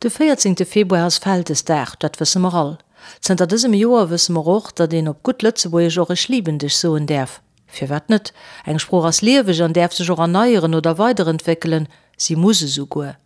De 14 Februar ass Vältesdag, dat wësse mer all. Zënter dësem Joer wësse mer och, datt een op gutt Lëtzebuergesch och Ech lieben dech soen däerf. Firwat net? Eng Sprooch ass lieweg an däerf sech och erneieren oder weiderentwéckelen, si muss esouguer.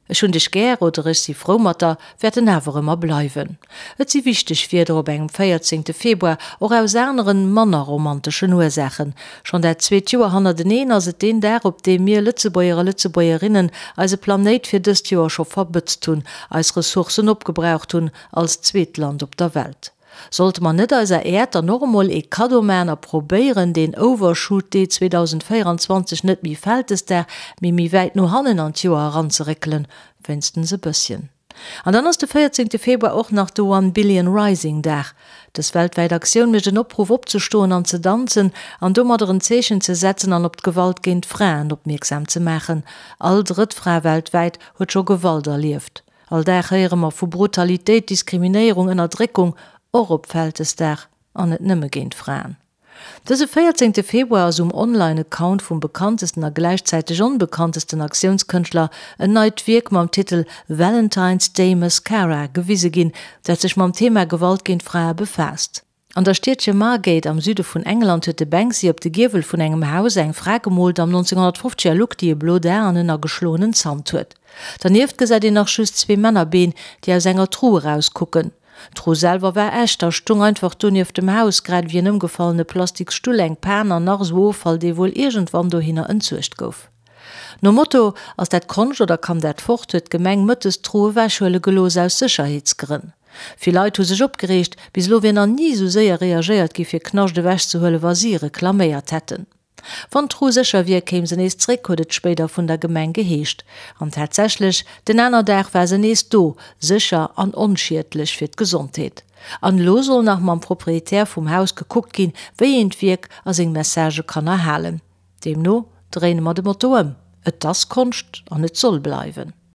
Ech hunn dech gär oder ech si frou mat der wäerten awer ëmmer bleiwen. Et si wichteg Wierder op engem 14 Februar, och aus aneren, manner romanteschen Ursaachen. Schonn dat zweet Joer hannerteneen ass et deen Dag, op deem mir Lëtzebuerger a Lëtzebuergerinnen eise Planéit fir dëst Joer scho verbëtzt hunn, eis Ressourcen opgebraucht hunn, als zweet Land op der Welt. Sollte mer net eiser Äerd dann och emol ee Kaddo man a probéieren deen Overshoot Day 2024 net méi Vältesdag, mee méi wäit no hannen an d'Joer eranzeréckelen, wéinstens e bësschen? An dann ass de 14 Februar och nach de One Billion Rising Dag. Dës weltwäit Aktioun mécht en Opruff opzestoen an ze danzen an domadder en Zeechen ze setzen an op d'Gewalt géint Fraen opmierksam ze maachen. All drëtt Fra weltwäit huet scho Gewalt erlieft. All Dag héiere mer vu Brutalitéit, Diskriminéierung, Ënnerdréckung, och op Vältesdag, an net nëmme géint Fraen. Dëse 14 Februar ass um Online-Account vum bekanntesten a gläichzäiteg onbekanntesten Aktiounskënschtler en neit Wierk mam Titel Valentine's Day Mascara gewise ginn, dat sech mam Thema Gewalt géint Frae befaasst. An der Stiedche Margate am Süde vun England huet de Banksy op de Giewel vun engem Haus eng Fra gemoolt am 1950er Look, déi e blot A an en ageschloenen Zant huet. Dernieft gesäit een nach just zwee Männerbeen, déi aus enger Tru erauskucken. D'Tru selwer war echt a stung einfach do nieft dem Haus, grad ewéi en ëmgefallene plastiks Stull, eng Pan an nach esou Offall, dee wuel iergendwann dohinner entsuergt gouf. Nom Motto Ass dat Konscht oder kann dat fort? huet d'Gemeng mëttes d'Tru ewechhuele gelooss, aus Sécherheetsgrënn. Vill Leit hu sech opgereegt, bis elo wier nach ni esou séier reagéiert gi fir Knascht ewechzehuelen, wa si reklaméiert hätten. Wann d'Tru sécher wier, kéim se nees zréck, huet et spéider vun der Gemeng geheescht. An tatsächlech, den aner Dag war se nees do, sécher an onschiedlech fir d'Gesondheet. An elo soll nach mam Proprietär vum Haus gekuckt ginn, wéi een d'Wierk a seng Messagë kann erhalen. Deemno dréine mer de Motto ëm, Et ass Konscht an et soll bleiwen.